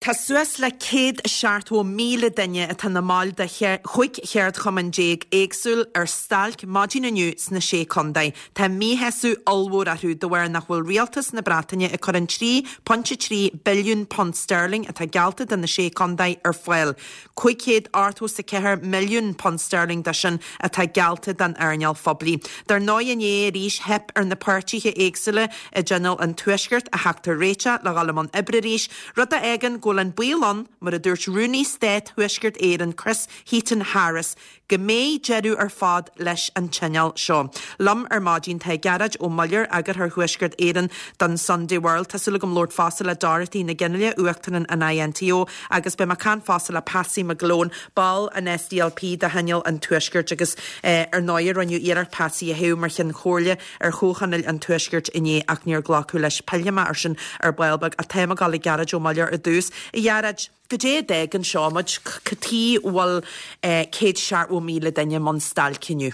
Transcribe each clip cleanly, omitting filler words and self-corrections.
Tá suas le 170,000 duine atá ina mbaill de 15 cheardchumann éagsúil ar stailc maidin inniu sna Sé Contae. Tá míshásamh ollmhór orthu de bharr nach bhfuil rialtas na Breataine ag cur an £3.3 billiún sterling atá geallta do na Sé Contae ar fáil. £584 milliún sterling de sin atá geallta don earnáil phoiblí. Dar ndóigh inné arís theip ar na páirtithe éagsúla i dTionól an Tuaiscirt a theacht ar réiteach le dhul i mbun oibre arís, rud a fhágann go bhfuil an baol ann, mar a dúirt Rúnaí Stáit Thuaisceart Éireann Chris Heaton-Harris, go mbeidh deireadh ar fad leis an Tionól seo. Liom ar maidin tá Gearóid Ó Muilleoir, Eagarthóir Thuaisceart Éireann don Sunday World. Tá súil agam labhairt fosta le Dorothy Nic Fhionnghaile, Uachtarán an INTO, agus beidh mé ag caint fosta le Patsy McGlone, ball an SDLP do Thionól an Tuaiscirt agus ar ndóigh rinneadh iarracht Patsy a thoghadh mar Cheann Comhairle ar Chomhthionól an Tuaiscirt inné ach níor glacadh leis. Pillfidh mé air sin ar ball beag. Ach táim ag dul ag Gearóid Ó Muilleoir ar dtús. A Ghearóid, goidé a d'fhág anseo muid? Cad chuige a bhfuil 170,000 duine i mbun stailce inniu?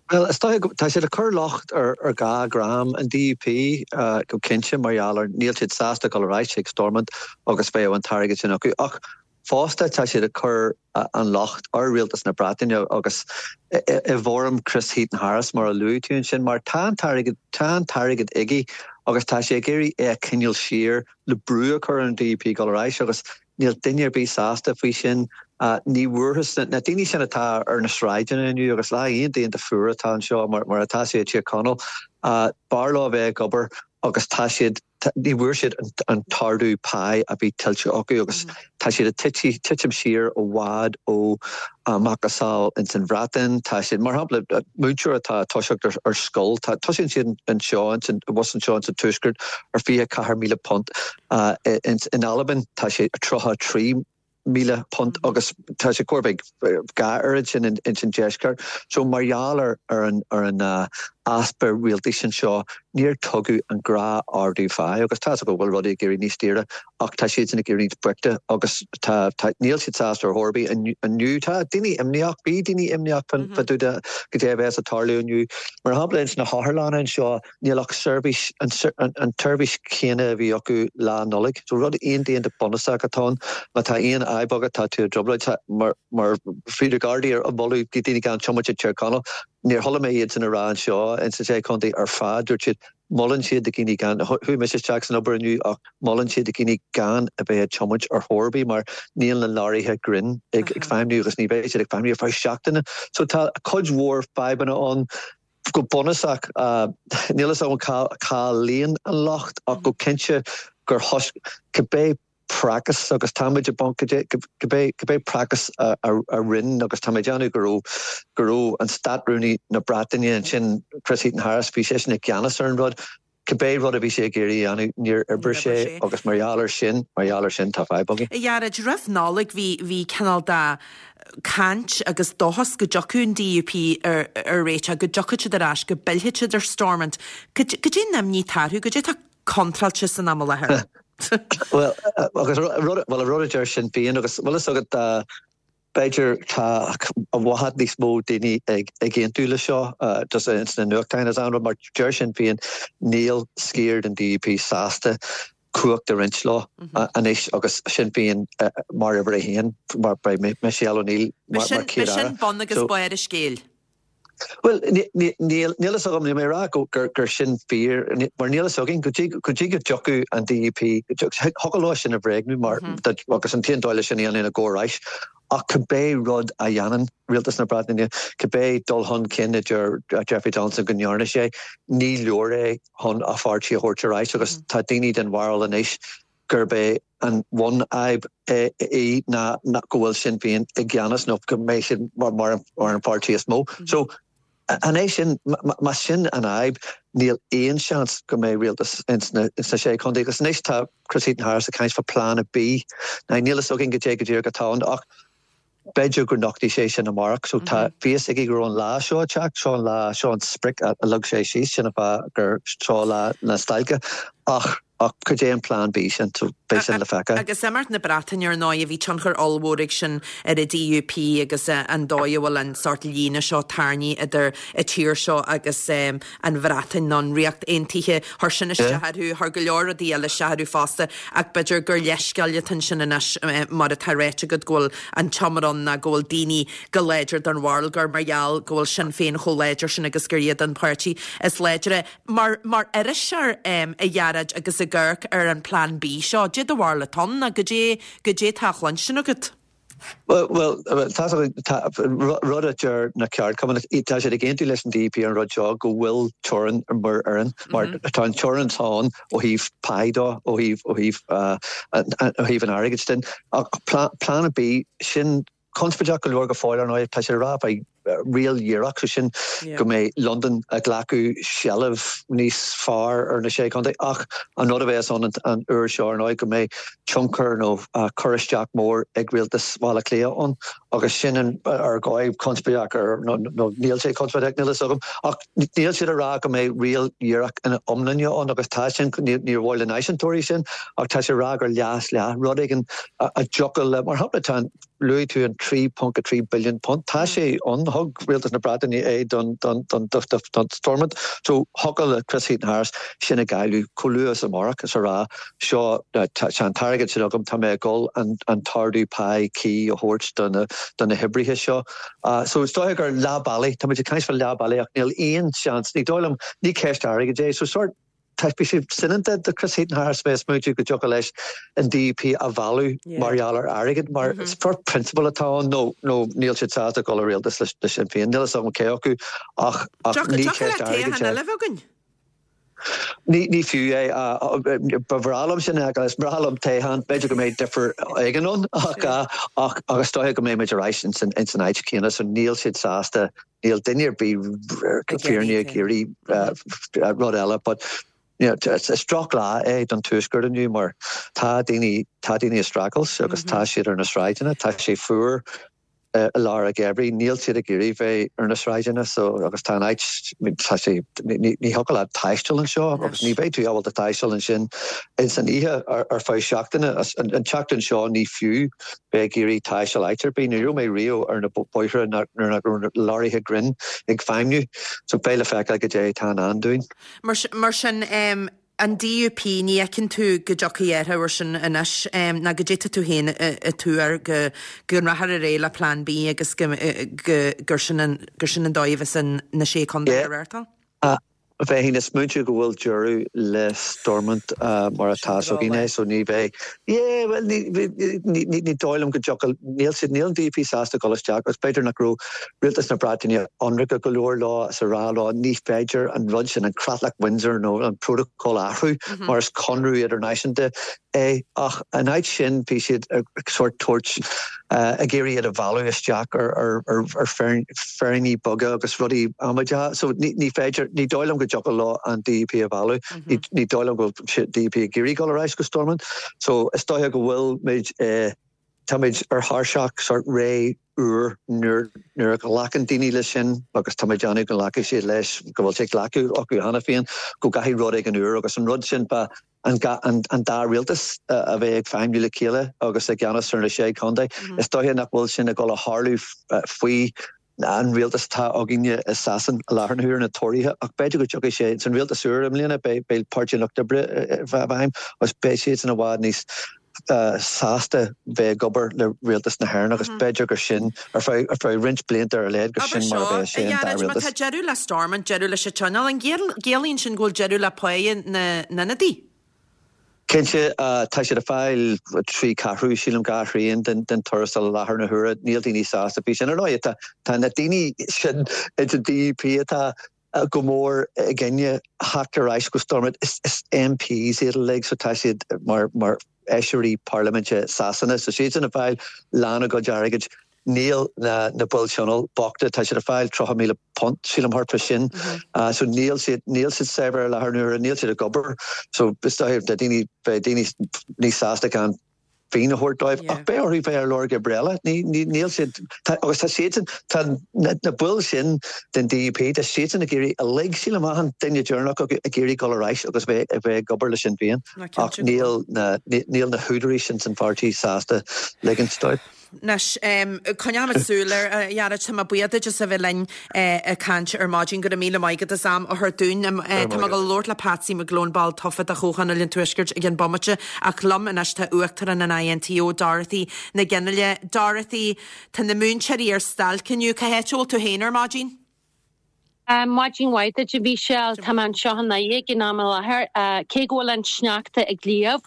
Bhuel, is dóigh go, tá siad ag cur locht ar dhá dhream, an DUP go cinnte mar gheall ar níl siad sásta dul ar ais ag Stormont agus bheadh an t-airgead sin acu ach fosta tá siad ag cur an locht ar rialtas na Breataine agus i bhfoirm Chris Heaton-Harris mar a luaigh tú ansin mar tá an t-airgead, tá an t-airgead aige agus tá sé ag iarraidh é a choinneáil siar le brú a chur ar an DUP dul ar ais agus Níl duine ar bith sásta faoi sin. Ní bhfuarthas na daoine sin atá ar na sráideanna inniu, agus lá iontach iontach fuar atá anseo, mar atá sé i Tír Chonaill, b'fhearr leo a bheith ag obair agus tá siad, ní bhfuair siad an t-ardú pá a bhí tuillte acu agus tá siad ag titim siar i bhfad ó a macasamhail ins an Bhreatain. Tá siad, mar shampla, múinteoir atá ag toiseacht ar scoil, tá, tosaíonn siad anseo, abhus anseo ins an Tuaisceart ar £24,000. In Albain tá sé £33,000 agus tá sé chóir a bheith dhá oiread sin ins an deisceart. So mar gheall ar an easpa rialtais anseo níor tugadh an gnáth-ardú pá agus tá a fhios agam go bhfuil rudaí ag éirí níos daoire ach tá siadsan ag éirí níos boichte agus tá, tá, níl siad sásta ar chor ar bith inniu. Tá daoine imníoch, bhí daoine imníoch fá dtaobh de goidé a bheas ag tarlú inniu. Mar shampla ins na hotharlanna anseo níl ach seirbhís, an tseirbhís chéanna a bhí acu Lá Nollag. So rud iontach iontach bunúsach atá ann. Má tá aon fhadhb agat tá tú i dtrioblóid. Tá, mar, mar bhí na Gardaí ag moladh do daoine gan tiomáint i Tír Chonaill. Níor chuala mé iad sin ag rá anseo in sa Sé Chontae ar fad. Dúirt siad, molann siad do dhaoine gan, chuaigh mise isteach san obair inniu ach molann siad do dhaoine gan a bheith ag tiomáint ar chor ar bith mar níl na leoraithe grinn ag feidhmniú agus ní bheidh siad ag feidhmniú ar feadh seachtaine. So tá cuid mhór fadhbanna ann. Go bunúsach, níl fhios agam cá luíonn an locht ach go cinnte gur thoisc cibé praghas agus táimid i bponc cibé cibé praghas a rinne agus tá mé ag déanamh go raibh go raibh an Stát-Rúnaí na Breataine ansin Chris Heaton-Harris bhí seisean i gceannas ar an rud cibé rud a bhí sé ag iarraidh a dhéanamh níor oibrigh sé agus mar gheall ar sin mar gheall ar sin tá fadhb againn. A Ghearóid, roimh Nollaig bhí bhí cineál de caint agus dóchas go dtiocfadh an DUP ar ar réiteach, go dtiocfadh siad ar ais, go bpillfeadh siad ar Stormont. Goidé an imní atá orthu, goidé atá contráilte san am i láthair. Bhuel, agus rud, bhuel, an rud a deir Sinn Féin agus bhfuil fhios agat, b'fhéidir tá i bhfad níos mó daoine ag ag aontú le seo just ins na nuachtáin is an rud mar deir Sinn Féin níl sciar den DUP sásta cumhacht a roinnt leo anois agus Sinn Féin mar uimhir a haon mar beidh Michelle O'Neill mar mar Chéad-Aire. B'shin bun agus barr an scéil. Bhuel, níl fhios agam, níl mé ag rá gur sin fíor, mar níl fhios againn, go dtí go dtí go dtiocfadh an DUP, thiocfadh leo sin a bhréagnú mar, agus an t-aon dóigh le sin a dhéanamh ná gabháil ar ais, ach cibé rud a dhéanann Rialtas na Breataine, cibé dul chun cinn a deir Jeffrey Donaldson go ndearna sé, ní leor é chun a pháirtí a thabhairt ar ais agus tá daoine den bharúil anois gurb é an bhunfhadhb í ná go bhfuil Sinn Féin i gceannas nó go mbeidh siad mar an pháirtí is mó. So, an é sin, más sin an fhadhb, níl aon seans go mbeidh rialtas ins na Sé Chontae. Agus anois tá Chris Heaton-Harris ag caint fá Plean B. Now níl fhios againn goidé go díreach atá ann ach b'fhéidir go nochtfaidh sé sin amárach. So tá fios aige go raibh an lá seo ag teacht, seo an lá, seo an sprioc a leag sé síos, sin an fáth gur seo lá na stailce. Ach. Ach cad é an Plean B sin? So beidh sin le feiceáil. Agus imeacht na Breataine ar ndóigh, bhí tionchar ollmhór ag sin ar an DUP agus an dóigh a bhfuil an sórt líne seo tarraingthe idir an tír seo agus an Bhreatain nó an Ríocht Aontaithe. Chuir sin isteach orthu, chuir go leor rudaí eile isteach orthu fosta ach b'fhéidir gur leithscéal atá ansin anois mar atá ráite agat go bhfuil an tionchar ann ná go bhfuil daoine go láidir den bharúil gur mar gheall go bhfuil Sinn Féin chomh láidir sin agus gur iad an páirtí is láidre. Mar, mar iriseoir, a Ghearóid, agus ag amharc ar an Plan B seo, goidé do bharúil atá ann ná goidé, goidé atá á chluinstin agat? Bhuel, tá, tá, rud a deir na ceardchumainn, tá siad ag aontú leis an DUP ar an rud seo go bhfuil teorainn Muir Éireann, mar tá an teorainn atá ann ó thaobh pá de, ó thaobh, ó thaobh, ó thaobh an airgid sin. Ach Plean B, sin Conspóideach go leor go fóill, ar ndóigh. Tá siad ag rá beidh riail dhíreach, sé sin go mbeidh Londain ag glacadh seilbh níos fearr ar na Sé Chontae. Ach an rud a bheas ann an uair seo, ar ndóigh, go mbeidh tionchar nó cur isteach mór ag rialtas Bhaile Átha Cliath ann. Agus sin an, ar dhóigh, conspóideach ar, nó níl sé conspóideach, níl a fhios agam. Ach níl siad ag rá go mbeidh riail dhíreach ina iomláine ann agus tá sin, níor mhaith le náisiúntóirí sin, ach tá siad ag rá gur leath is leath, rud éigin a dtiocfadh le, mar shampla, tá an. Luaigh tú an £3.3 billiún, tá sé ann, thug Rialtas na Breataine é don Stormont. So thiocfadh le Chris Heaton-Harris sin a dháileadh chomh luath is amárach is a rá seo, tá an t-airgead sin agam, tá mé ag dul an t-ardú pá cuí a thabhairt do na hoibrithe seo. So is dócha gur leath bealaigh, tá muid ag caint fá leath bealaigh ach níl aon seans, ní dóigh liom, ní ceist airgid é. So sort. Tá sé soineanta do Chris Heaton-Harris bheith ag smaointiú go dtiocfadh leis an DUP a mhealladh mar gheall ar airgead, mar is sórt prionsabal atá ann nó nó níl siad sásta dul i rialtas le Sinn Féin. Níl a fhios agam cé acu ach ach ní ceist airgid é. Ní ní fiú é. Ba bhreá liom sin a fheiceáil. Is breá liom toghchán. B'fhéidir go mbeidh difear éigin ann ach ach ach is dóiche go mbeidh muid ar ais ins an ins an áit chéanna so níl siad sásta Níl duine ar bith fírinne ag iarraidh rud eile but you know is droch lá é don Tuaisceart inniu mar tá daoine tá daoine ag streachailt agus tá siad ar na sráideanna, tá sé fuar i lár an gheimhridh, níl siad ag iarraidh bheith ar na sráideanna so agus tá an áit tá sé ní thiocfadh leat taisteal anseo agus ní bheidh tú ábalta taisteal ansin ins an oíche ar feadh seachtaine an tseachtain seo ní fiú bheith ag iarraidh taisteal áit ar bith. Ní raibh mé riamh ar na bóithre nuair nach raibh na leoraithe grinn ag feidhmiú. So beidh le feiceáil goidé atá i ndán dúinn. Mar sin, an DUP, ní fheiceann tú go dtiocfaidh athrú air sin anois, ná goidé tá tú féin ag tuar go go rachfar ar aghaidh le Plean B agus go gur sin an gur sin an dóigh a bheas na Sé Chontae á reáchtáil? Bheinn ag smaointiú go bhfuil deireadh le Stormont mar atá againn é, so ní bheidh, yeah, bhuel, ní, ní, ní, ní dóigh liom go dtiocfadh, níl siad, níl an DUP sásta dul isteach agus b'fhéidir nach raibh rialtas na Breataine ionraic go leor leo is a rá leo ní féidir an rud sin, an Creatlach Windsor nó an Protocol a athrú mar is conradh idirnáisiúnta é ach in áit sin bhí siad ag sórt tabhairt, ag iarraidh iad a mhealladh isteach ar féiríní beaga agus rudaí amaideacha. So ní féidir, ní dóigh liom go dtiocfadh leo an DUP a mhealladh, ní dóigh liom go bhfuil DUP ag iarraidh dul ar ais go Stormont. So is dóiche go bhfuil muid i, táimid ar thairseach sórt ré úr nuair a ghlacann daoine leis sin agus tá mé ag déanamh go nglacfaidh siad leis, go bhfuil sé glactha acu cheana féin, go gcaithfidh rud éigin úr agus an rud sin ba an dá rialtas a bheith ag feidhmiú le chéile agus i gceannas ar na sé chontae. Is dóiche nach bhfuil sin ag dul a tharlú faoi an rialtas atá againne i Sasain i láthair na huaire, na Tóraithe, ach b'fhéidir go dtiocfaidh sé san rialtas úr i mbliana, beidh Páirtí an Lucht Oibre i bhfeidhm agus beidh siadsan i bhfad níos sásta bheith ag obair le rialtas na hÉireann agus b'fhéidir gur sin, ar feadh ar feadh roinnt blianta ar a laghad, gur sin mar a bheas sé, an dá rialtas. Má tá deireadh le Stormont, deireadh leis an Tionól, an gciallaíonn sin go bhfuil deireadh le páighe na n-ionadaí? Cinnte, tá siad ag fáil 3 ceathrú, sílim, 2 thrian den tuarastal i láthair na huaire. Níl daoine sásta faoi sin. Ar ndóigh, tá na daoine sin ins an DUP atá go mór i gcoinne theacht ar ais go Stormont. Is MPs iad uilig so tá siad mar mar fheisirí parlaiminte Sasana so siadsan ag fáil lán a gcuid airgid. Níl na na baill tionóil bochta, tá siad ag fáil £30,000 sílim thart fá sin. So níl siad níl siad saibhir i láthair na huaire, níl siad ag obair. So is dóigh daoine beidh daoine níos sásta gan. Féin a thabhairt dóibh ach beidh orthu bheith ar lorg oibre eile. Níl siad, agus tá siadsan, tá na baill sin den DUP, tá siadsan ag iarraidh uilig, sílim achan duine deireanach acu ag iarraidh dul ar ais agus bheith bheith ag obair le Sinn Féin ach níl na níl na húdaráis sin san pháirtí sásta ligint dóibh. Anois, coinneoimid súil air, a Ghearóid. Tá mé buíoch duit as a bheith linn ag caint ar maidin. Go raibh míle maith agat as am a thabhairt dúinn. Tá mé ag dul a labhairt le Patsy McGlone, ball tofa de Chomhthionól an Tuaiscirt i gceann bomaite, ach liom anois tá Uachtarán an INTO, Dorothy Nic Fhionnghaile. Dorothy, tá na múinteoirí ar stailc inniu. Cá háit a bhfuil tú féin ar maidin? Maidin mhaith duit, a Mhichelle. Tá mé anseo i nDoire ag an am i láthair. Cé go bhfuil an sneachta ag luíomh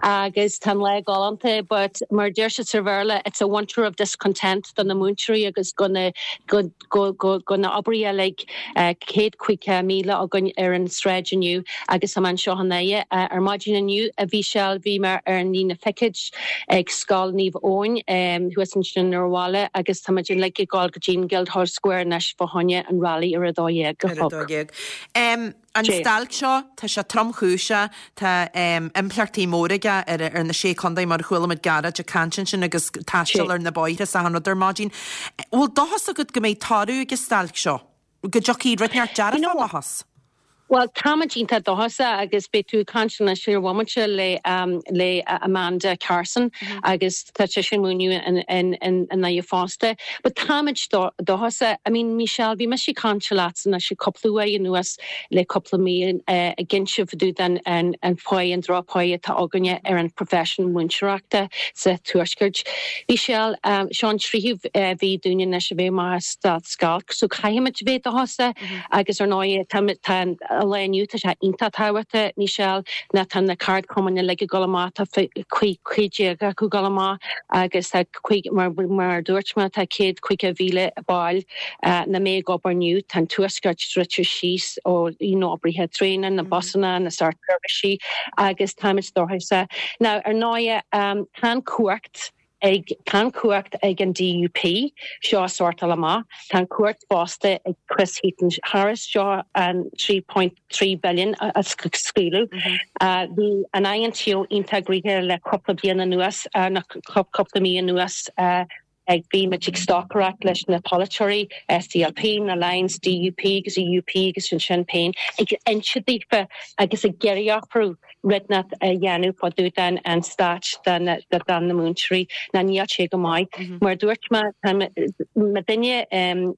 agus tá an lá galánta, but mar a deir siad sa Bhéarla, it's a winter of discontent do na múinteoirí agus go na go go go go na oibrithe uilig. 150,000 againn ar an sráid inniu agus tá mé anseo i nDoire. Ar maidin inniu, a Mhichelle, bhí mé ar an líne phicéid ag Scoil Naomh Eoin thuas ansin ar an bhaile agus tá muid uilig ag dul go dtí an Guildhall Square anois fá choinne an rally ar a 12 a chlog. Ar a 12. An stailc seo, tá sé tromchúiseach, tá impleachtaí móra aige ar na Sé Chontae mar a chuala muid Gearóid ag caint ansin agus taisteal ar na bóithre is achan rud ar maidin. Bhfuil dóchas agat go mbeidh toradh ag an stailc seo? Go dtiocfaidh rud inteacht dearfach amach as? Bhuel, táimid iontach dóchasach agus beidh tú ag caint anois ar bhomaite le le Amanda Carson agus tá sise ag múineadh i nDoire fosta. But táimid dóchasach. I mean, Michelle, bhí mise ag caint leatsa anois cúpla uair anuas le cúpla mí ag inse fá dtaobh den an pháigh, an drochpháigh atá againne ar an profession múinteoireachta sa Tuaisceart. Michelle, seo an tríú mhí dúinn anois a bheith amach ar stailc, so caithfimid a bheith dóchasach. Agus ar ndóigh, tá tá an lá inniu, tá sé iontach tábhachtach, Michelle, ná tá na ceardchumainn uilig ag dul amach, tá 15 acu ag dul amach agus tá cuig, mar mar a dúirt mé, tá 150,000 ball nach mbeidh ag obair inniu, tá an Tuaisceart druidte síos ó you know oibrithe traenach, na busanna, na státseirbhísí agus táimid dóchasach. Now, ar ndóigh, tá an cumhacht ag, tá an chumhacht ag an DUP seo a shórtáil amach. Tá an chumhacht fosta ag Chris Heaton-Harris seo an 3.3 billion a scaoileadh. Bhí an INTO iontach gnoitheach le cúpla bliain anuas, nó cúpla mí anuas, ag bhí muid ag stocaireacht leis na polaiteoirí, SDLP, na Alliance, DUP agus UUP agus an Sinn Féin, ag inse daofa agus ag iarraidh orthu rud inteacht a dhéanamh fá dtaobh den an stáit do na múinteoirí ná níl sé go maith. Mar a dúirt mé, tá muidinne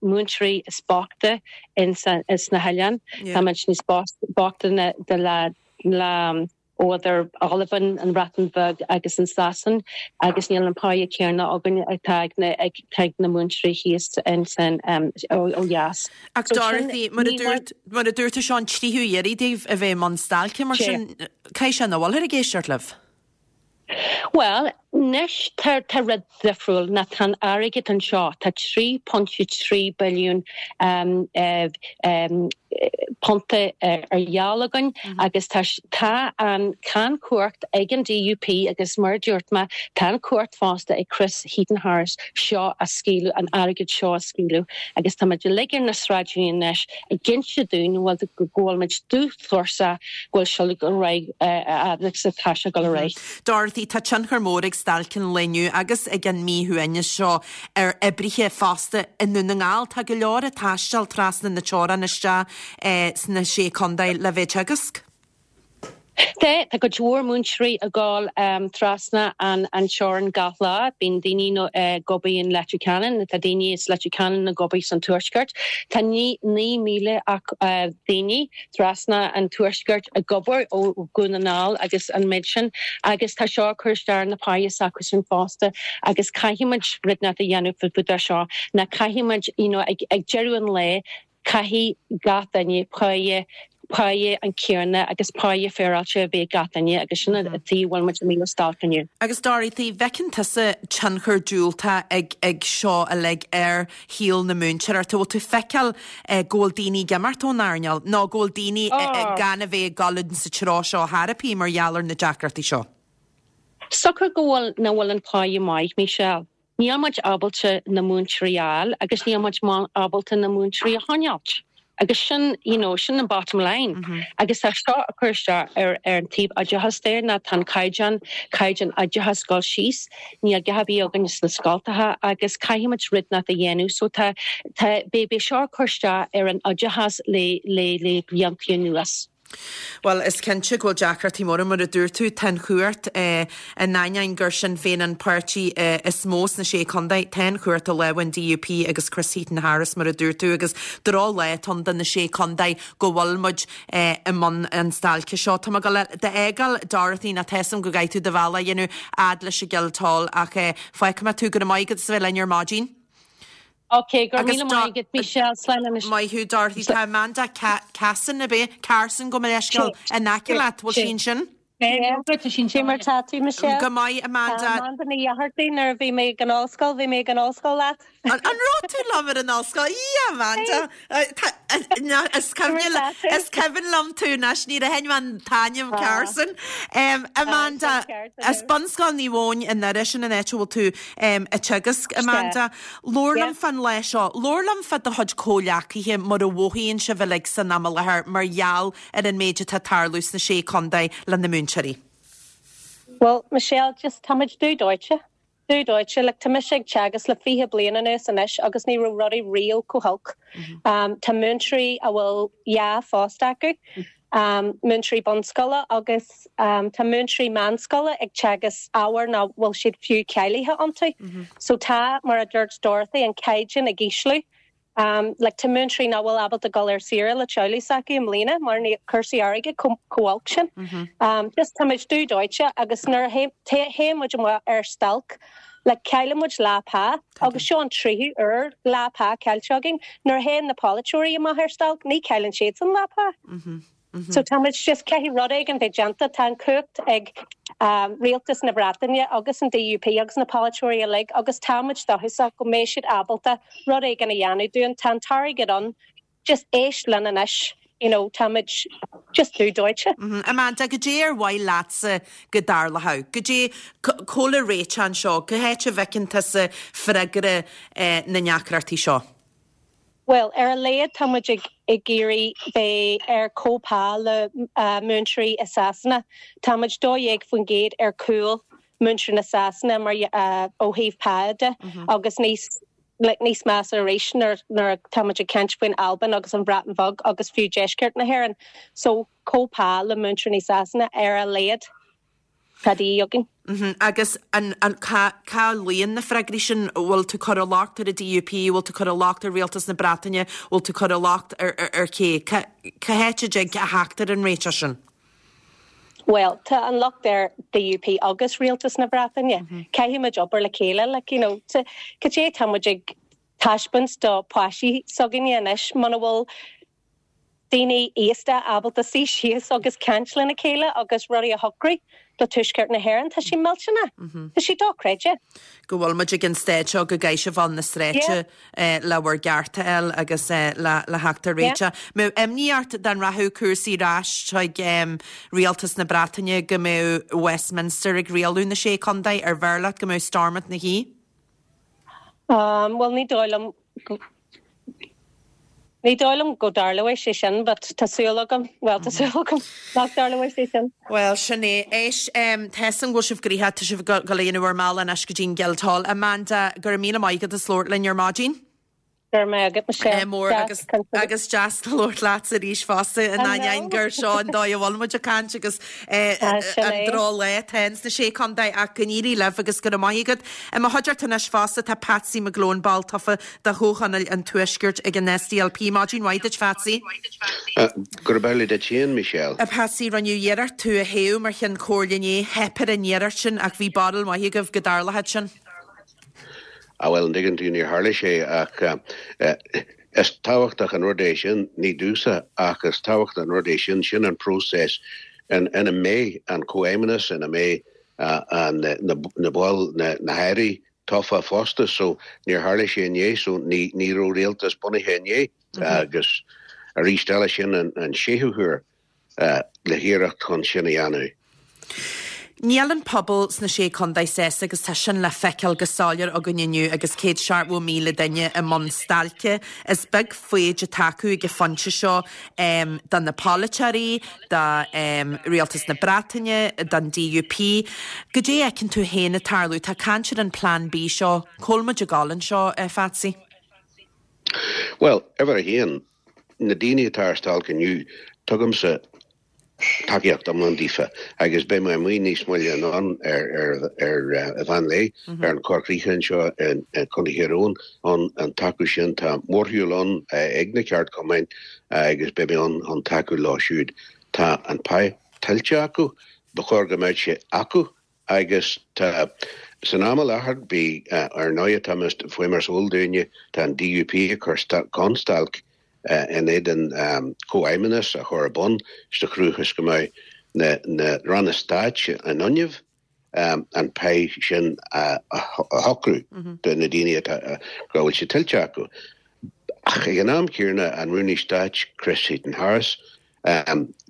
múinteoirí is bochta ins na hoileáin, tá muid níos bochta ná le other Albain, an Bhreatain Bheag agus an Sasain agus níl an páighe céanna againn atá ag na múinteoirí thíos ins an ó dheas. Ach Dorothy, mar a dúirt, mar a dúirt tú seo an tríú iarraidh daoibh a bheith i mbun stailce, mar sin, caithfidh sé nach bhfuilthear ag éisteacht libh? Bhuel, anois tá, tá rud difriúil ná tá an airgead anseo, tá 3.3 billiún punta ar fáil againn agus tá, tá an, tá an chumhacht ag an DUP agus mar a dúirt mé, tá an chumhacht fosta ag Chris Heaton-Harris seo a scaoileadh, an airgead seo a scaoileadh agus tá muid uilig ar na sráideanna anois ag inse dúinn go bhfuil muid dúthuirsach go bhfuil seo ag dul ar aghaidh agus atá sé ag dul ar aghaidh. Dorothy, tá tionchar mór ag stailc an lae inniu agus ag an míshuaimhneas seo ar oibrithe fosta i nDún na nGall. Tá go leor ag taisteal trasna na teorann isteach sna Sé Chontae le bheith ag teagasc. Tá, tá cuid mhór múinteoirí ag dul trasna an teorainn gach lá. Bíonn daoine ag obair in Leitir Ceanainn, tá daoine as Leitir Ceanainn ag obair san Tuaisceart. Tá 9,000 daoine trasna an Tuaiscirt ag obair ó Dhún na nGall agus an méid sin agus tá seo ag cur isteach ar na páighe s'acusan fosta agus caithfidh muid rud inteacht a dhéanamh fá dtaobh de seo ná caithfidh muid you know ag deireadh an lae Caithfidh gach duine páighe, páighe an céanna agus páighe féaráilte a bheith ag gach duine agus sin an tuige a bhfuil muid amuigh ar stailc inniu. Agus Dorothy, bhfeiceann tusa tionchar diúltach ag ag seo uilig ar shaol na múinteoireachta? Bhfuil tú feiceáil go bhfuil daoine ag imeacht ón earnáil nó go bhfuil daoine gan a bheith ag dul in sa treo seo thar a bith mar gheall ar na deacrachtaí seo? Siocair go bhfuil, nach bhfuil an páighe maith, Michelle. Níl muid ábalta na múinteoirí a fháil agus níl muid ábalta na múinteoirí a choinneáilt. Agus sin, you know, sin an bottom line. Agus tá seo ag cur isteach ar ar an taobh oideachais de ná tá an caighdeán, caighdeán oideachais ag dul síos, níl a dhath ar bith againn sna scoltacha agus caithfimid rud inteacht a dhéanamh. So tá, tá, beidh, beidh seo ag cur isteach ar an oideachas le, le, le blianta anuas. Bhuel, is cinnte go bhfuil deacrachtaí móra, mar a dúirt tú, tá an chumhacht, in ainneoin gur Sinn Féin an páirtí is mó sna Sé Chontae, tá an chumhacht i lámha an DUP agus Chris Heaton-Harris, mar a dúirt tú, agus drochlá atá ann do na Sé Chontae go bhfuil muid i mbun an stailce seo. Tá mé ag dul d'fhágáil, Dorothy, nó tá 'fhios a'm go gcaithfidh tú do bhealach a dhéanamh fhad leis an gCuill Tall, ach fágfaidh mé tú. Go raibh maith agat as a bheith linn ar maidin. Ok, go raibh míle maith agat, Michelle, slán anois. Maith thú, Dorothy. Tá Amanda Casson, ab é? Carson, gabh mo leithscéal, in aice leat, bhfuil sí ansin? Tá sí ansin. Mar tá tú, Michelle. Go maith, Amanda. Tá Amanda Ní Fhathartaigh, nuair a bhí mé ag an ollscoil, bhí mé ag an ollscoil leat. An raibh tú liom ar an ollscoil? Yeah, Amanda. Is cuimhin liom tú anois, níor aithin mé an t-ainm Carson. Amanda, as Bunscoil Naomh Eoin i nDoire, sin an áit a bhfuil tú ag teagasc, Amanda. Labhair liom fán lá seo. Labhair liom fá do chuid comhghleacaithe mar a mhothaíonn sibh uilig san am i láthair mar gheall ar an méid atá ag tarlú sna Sé Chontae le na múinteoirí. Bhuel, Michelle, just táimid dubh dóite. Dubh dóite. Like, tá mise ag teagasc le 20 bliain anuas anois agus ní raibh rudaí riamh chomh holc. Tá múinteoirí a bhfuil dhá phost acu. múinteoirí bunscoile agus tá múinteoirí meánscoile ag teagasc ábhair nach bhfuil siad fiú cáilithe iontu. So tá, mar a dúirt Dorothy, an caighdeán ag ísliú. Like tá múinteoirí nach bhfuil ábalta dul ar saoire le teaghlaigh s'acu i mbliana mar níl cúrsaí airgid chomh holc sin. Just táimid dubh dóite agus nuair a théann muid amach ar stailc, like cailleann muid lá pá agus seo an tríú uair lá pá caillte againn. Nuair a théann na polaiteoirí amach ar stailc ní chailleann siadsan lá pá. So tá muid just caithfidh rud éigin bheith déanta. Tá an chumhacht ag rialtas na Breataine agus an DUP agus na polaiteoirí uilig agus tá muid dóchasach go mbeidh siad ábalta rud éigin a dhéanamh dúinn. Tá an t-airgead ann. Just éist linn anois, you know, táimid just dubh dóite. Amanda, goidé ar mhaith leatsa go dtarlódh? Goidé, cá bhfuil an réiteach anseo? Cá háit a bhfeiceann tusa freagra na ndeacrachtaí seo? Bhuel, ar a laghad tá muid ag ag iarraidh bheith ar comhphá le múinteoirí i Sasana. Tá muid 12% ar chúl múinteoirí na Sasana mar ó thaobh pá de agus níos like níos measa arís nuair nuair atá muid ag caint faoin Albain agus an Bhreatain Bheag agus fiú deisceart na hÉireann. So comhphá le múinteoirí Sasana ar a laghad tá de dhíth againn. Mm agus an an cá cá luíonn na freagraí sin? Bhfuil tú cur an locht ar an DUP, bhfuil tú cur an locht ar Rialtas na Breataine, bhfuil tú cur an locht ar ar ar cé? Cá cá háit a dtig a theacht ar an réiteach sin? Bhuel, tá an locht ar DUP agus Rialtas na Breataine. Caithfidh muid obair le chéile, like, you know, cad é tá muid ag taispeáint do pháistí s'againne anois muna bhfuil daoine aosta ábalta suí síos agus caint lena chéile agus rudaí a shocrú do Tuaisceart na hÉireann, tá sé millteanach. Tá sé dochreidte. Go bhfuil muid ag an staid seo go gcaithfidh sibh dul na sráide. le bhur gcearta a fháil agus le theacht ar réiteach. Mbeadh imní ort dá rachadh cúrsaí ar ais chuig Rialtas na Breataine go mbeadh Westminster ag rialú na Sé Chontae? Ar bhfearr leat go mbeadh Stormont 'na shuí? Bhuel, ní dóigh liom Ní dóigh liom go dtarlóidh sé sin but tá súil agam, bhuel tá súil agam nach dtarlóidh sé sin. Bhuel, sin é. Éist, tá 'fhios a'm go bhfuil sibh gnoitheach, tá sibh ag dul a dhéanamh bhur mbealach anois go dtí an Guildhall. Amanda, go raibh míle maith agat as labhairt linn ar maidin. Go raibh maith agat, Michelle. Mór agus agus deas labhairt leatsa arís fosta in ainneoin gur seo an dóigh a bhfuil muid ag caint agus an drochlá atá ann sna Sé Chontae ach go n-éirí libh agus go raibh maith agat. I mo chuideachta anois fosta tá Patsy McGlone, ball tofa de Chomhthionól an Tuaiscirt ag an SDLP. Maidin mhaith duit, Phatsy. Gurab amhlaidh duit féin, Michelle. A Phatsy, rinneadh iarracht tú a thoghadh mar Cheann Comhairle inné. Theip ar an iarracht sin ach bhí barúil mhaith agaibh go dtarlódh sin. Ah bhuel, an dtuigeann tú, níor tharla sé ach is tábhachtach an rud é sin, ní domhsa ach is tábhachtach an rud é sin, sin an próiseas ina mbeidh an Comhfheidhmeannas, ina mbeidh na baill, na hairí tofa fosta so níor tharla sé inné so ní ní raibh rialtas bunaithe inné agus arís eile sin an séú huair le hiarracht chun sin a dhéanamh. Níl an pobal sna Sé Contae sásta agus tá sin le feiceáil go soiléir againn inniu agus 170,000 duine i mbun stailce. Is beag foighid atá acu ag an phointe seo do na polaiteoirí, do Rialtas na Breataine, don DUP. Goidé a fheiceann tú féin ag tarlú? Tá caint ar an Plan B seo. Cá bhfuil muid ag dul anseo, a Phatsy? Bhuel, uimhir a haon, na daoine atá ar stailc inniu, tugaimse tacaíocht iomlán daofa agus beidh mé amuigh níos moille anonn ar ar mheán lae ar an Chorr Chríochach anseo i Contae Thír Eoghain chun an tacú sin. Tá mórshiúl ann ag na ceardchumainn agus beidh mé ann chun tacú leo siúd. Tá an pá tuillte acu, ba chóir go mbeadh sé acu agus tá san am i láthair, bhí ar ndóigh tá faoi mar is eol dúinne tá an DUP ag cur constailc in éadan comhfheidhmeannas a chur ar bun sa chruth is go mbeadh na ranna stáit in inmhe an pá sin a shocrú do na daoine atá go bhfuil sé tuillte acu. Ach ag an am céanna an Rúnaí Stáit Chris Heaton-Harris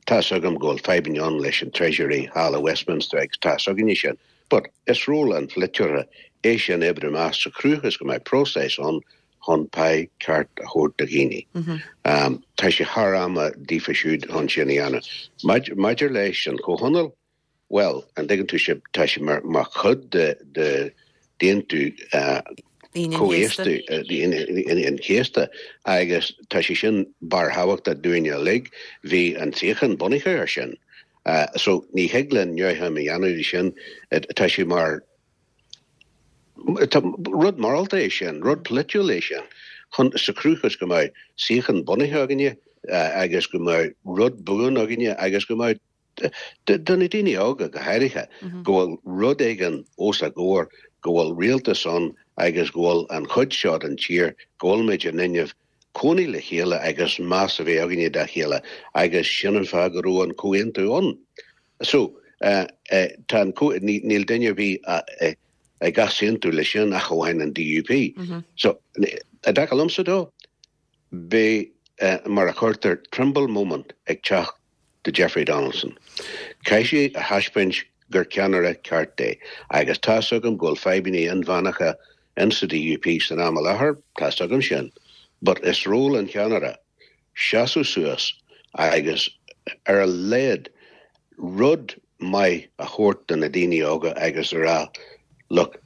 Tá's agam go bhfuil fadhbanna ann leis an Treasury thall i Westminster agus tá's againne sin, but is ról an pholaiteora é sin oibriú amach sa chruth is go mbeidh próiseas ann chun pá ceart a thabhairt do dhaoine. Tá sé thar am daofa siúd chun sin a dhéanamh. Maidir leis an Chomhthionól, Bhuel, an dtuigeann tú, sé, tá sé mar, mar chuid de, de, d'aontú, comhaontú Aoine an Chéasta agus tá sé sin barrthábhachtach dúinne uilig. Bhí an tsíocháin bunaithe air sin. So ní thig linn neamhshuim a dhéanamh de sin. Tá sé mar, tá, rud morálta é sin, rud polaitiúil é sin, chun, sa chruth is go mbeadh síocháin bunaithe againne agus go mbeadh rud buan againne agus go mbeadh do na daoine óga go háirithe, go bhfuil rud éigin os a gcomhair, go bhfuil rialtas ann agus go bhfuil an chuid seo den tír, go bhfuilimid in inmhe cónaí le chéile agus meas a bheith againne dá chéile agus sin an fáth go raibh an comhaontú ann. So, tá an, níl duine ar bith ag easaontú leis sin ach amháin an DUP. So, i dtaca liomsa dó, beidh, mar a chuirtear, Trimble moment ag teacht do Jeffrey Donaldson. Caithfidh sé a thaispeáint gur ceannaire ceart é. Agus tá's agam go bhfuil fadhbanna inmheánacha in sa DUP san am i láthair, tá's agam sin, but is ról an cheannaire seasamh suas agus ar a laghad rud maith a thabhairt do na daoine óga agus a rá look,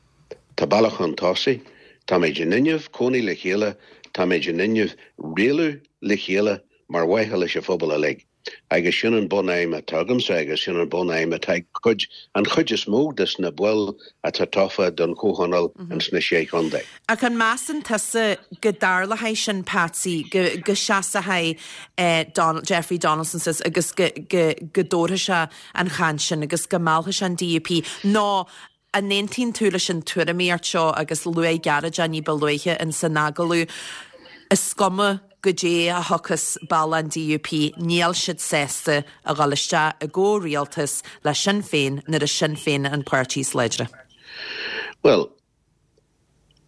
tá bealach chun tosaigh, táimid in inmhe cónaí le chéile, táimid in inmhe rialú le chéile, mar mhaithe leis an phobal uilig. Agus sin an bun-aidhm atá agamsa agus sin an bun-aidhm atá ag cuid, an chuid is mó des na baill atá tofa don Chomhthionól ins na Sé Chontae. Ach an measann tusa go dtarlóidh sin, Patsy, go, go seasfaidh Donald, Jeffrey Donaldson suas agus go, go, go dtabharfaidh sé an chaint sin agus go meallfaidh sé an DUP nó An aontaíonn tú leis an tuairimíocht seo agus luaigh Gearóid é ní ba luaithe in san agallamh, is cuma goidé a thiocfas bealach an DUP, níl siad sásta a dhul isteach i gcomhrialtas le Sinn Féin nuair is Sinn Féin an páirtí is láidre? Bhuel,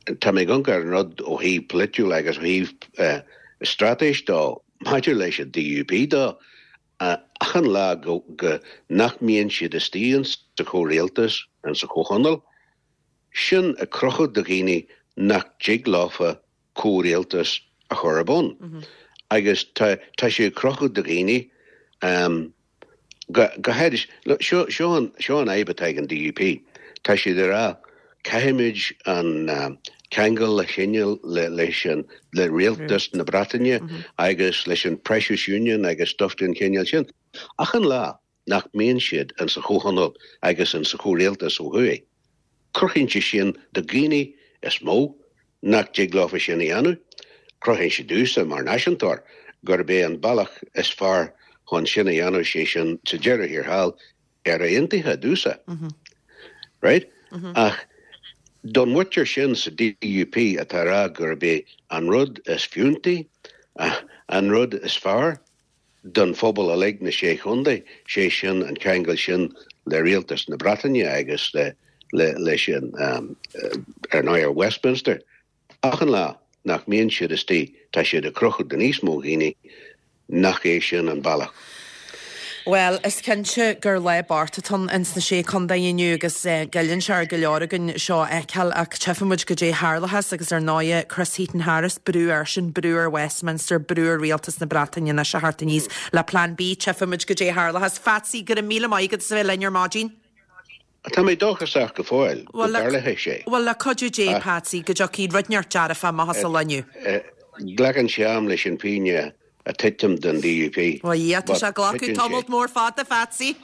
tá mé ag amharc ar an rud ó thaobh polaitiúil agus ó thaobh straitéis dó maidir leis an DUP dó. Achan lá go nach mbíonn siad istigh in sa chomhrialtas, in sa chomhthionól, sin ag crochadh do dhaoine nach dtig leofa comhrialtas a chur ar bun. Agus tá tá sé ag crochadh do dhaoine go go háirid, seo seo an seo an fhadhb atá ag an DUP, tá siad ag rá Caithfimid an ceangal a choinneáil leis an, le rialtas na Breataine agus leis an Precious Union agus stuff den chineál sin. Achan lá nach mbíonn siad in sa chomhthionól agus in sa chomhrialtas ó thuaidh, cruthaíonn sé sin do dhaoine is mó nach dtig leofa sin a dhéanamh. Cruthaíonn sé domhsa mar náisiúntóir gurb é an bealach is fearr chun sin a dhéanamh, sé sin sa deireadh thiar thall, Éire Aontaithe domhsa. Right? Ach don mhuintir sin sa DUP atá ag rá gurb é an rud is fiúntaí, an rud is fearr don phobal uilig na Sé Chontae, sé sin an ceangal sin le rialtas na Breataine agus le leis an, ar ndóigh ar Westminster, Achan lá nach mbíonn siad istigh tá siad ag crochadh do níos mó dhaoine nach é sin an bealach. Bhuel, is cinnte gur lá bocht atá ann ins na Sé Contae inniu agus goilleann sé ar go leor againn seo a fheiceáil ach tchífidh muid goidé tharlóchas agus ar ndóighe Chris Heaton-Harris, brú airsean, brú ar Westminster, brú ar Rialtas na Breataine anois a theacht aníos le Plean B, tchífidh muid goidé tharlóchas. Phatsy, go raibh míle maith agat as a bheith linn ar maidin. Tá mé dóchasach go fóill go dtarlóidh sé. Bhuel, le cuidiú Dé, Patsy, go dtiocfaidh rud inteacht dearfach amach as an lá inniu. Glacann sé am leis an phian a titim den DUP. Bhuel, yeah, tá sé ag glacadh tamalt mór fada, Phatsy.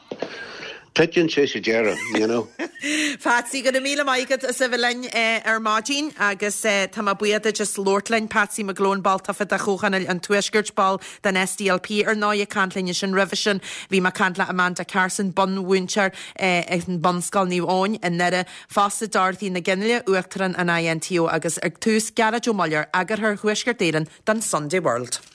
Titeann sé sa deireadh, you know. Phatsy, go raibh míle maith agat as a bheith linn ar maidin agus tá mé buíoch duit as labhairt linn. Patsy McGlone, ball tofa de Chomhthionól an Tuaiscirt, ball den SDLP ar ndóigh, ag caint linn ansin. Roimhe sin bhí mé ag caint le Amanda Carson, bunmhúinteoir i mBunscoil Naomh Eoin i nDoire. Fosta Dorothy Nic Fhionnghaile, Uachtarán an INTO agus ag tús, Gearóid Ó Muilleoir, Eagarthóir Thuaisceart Éireann don Sunday World.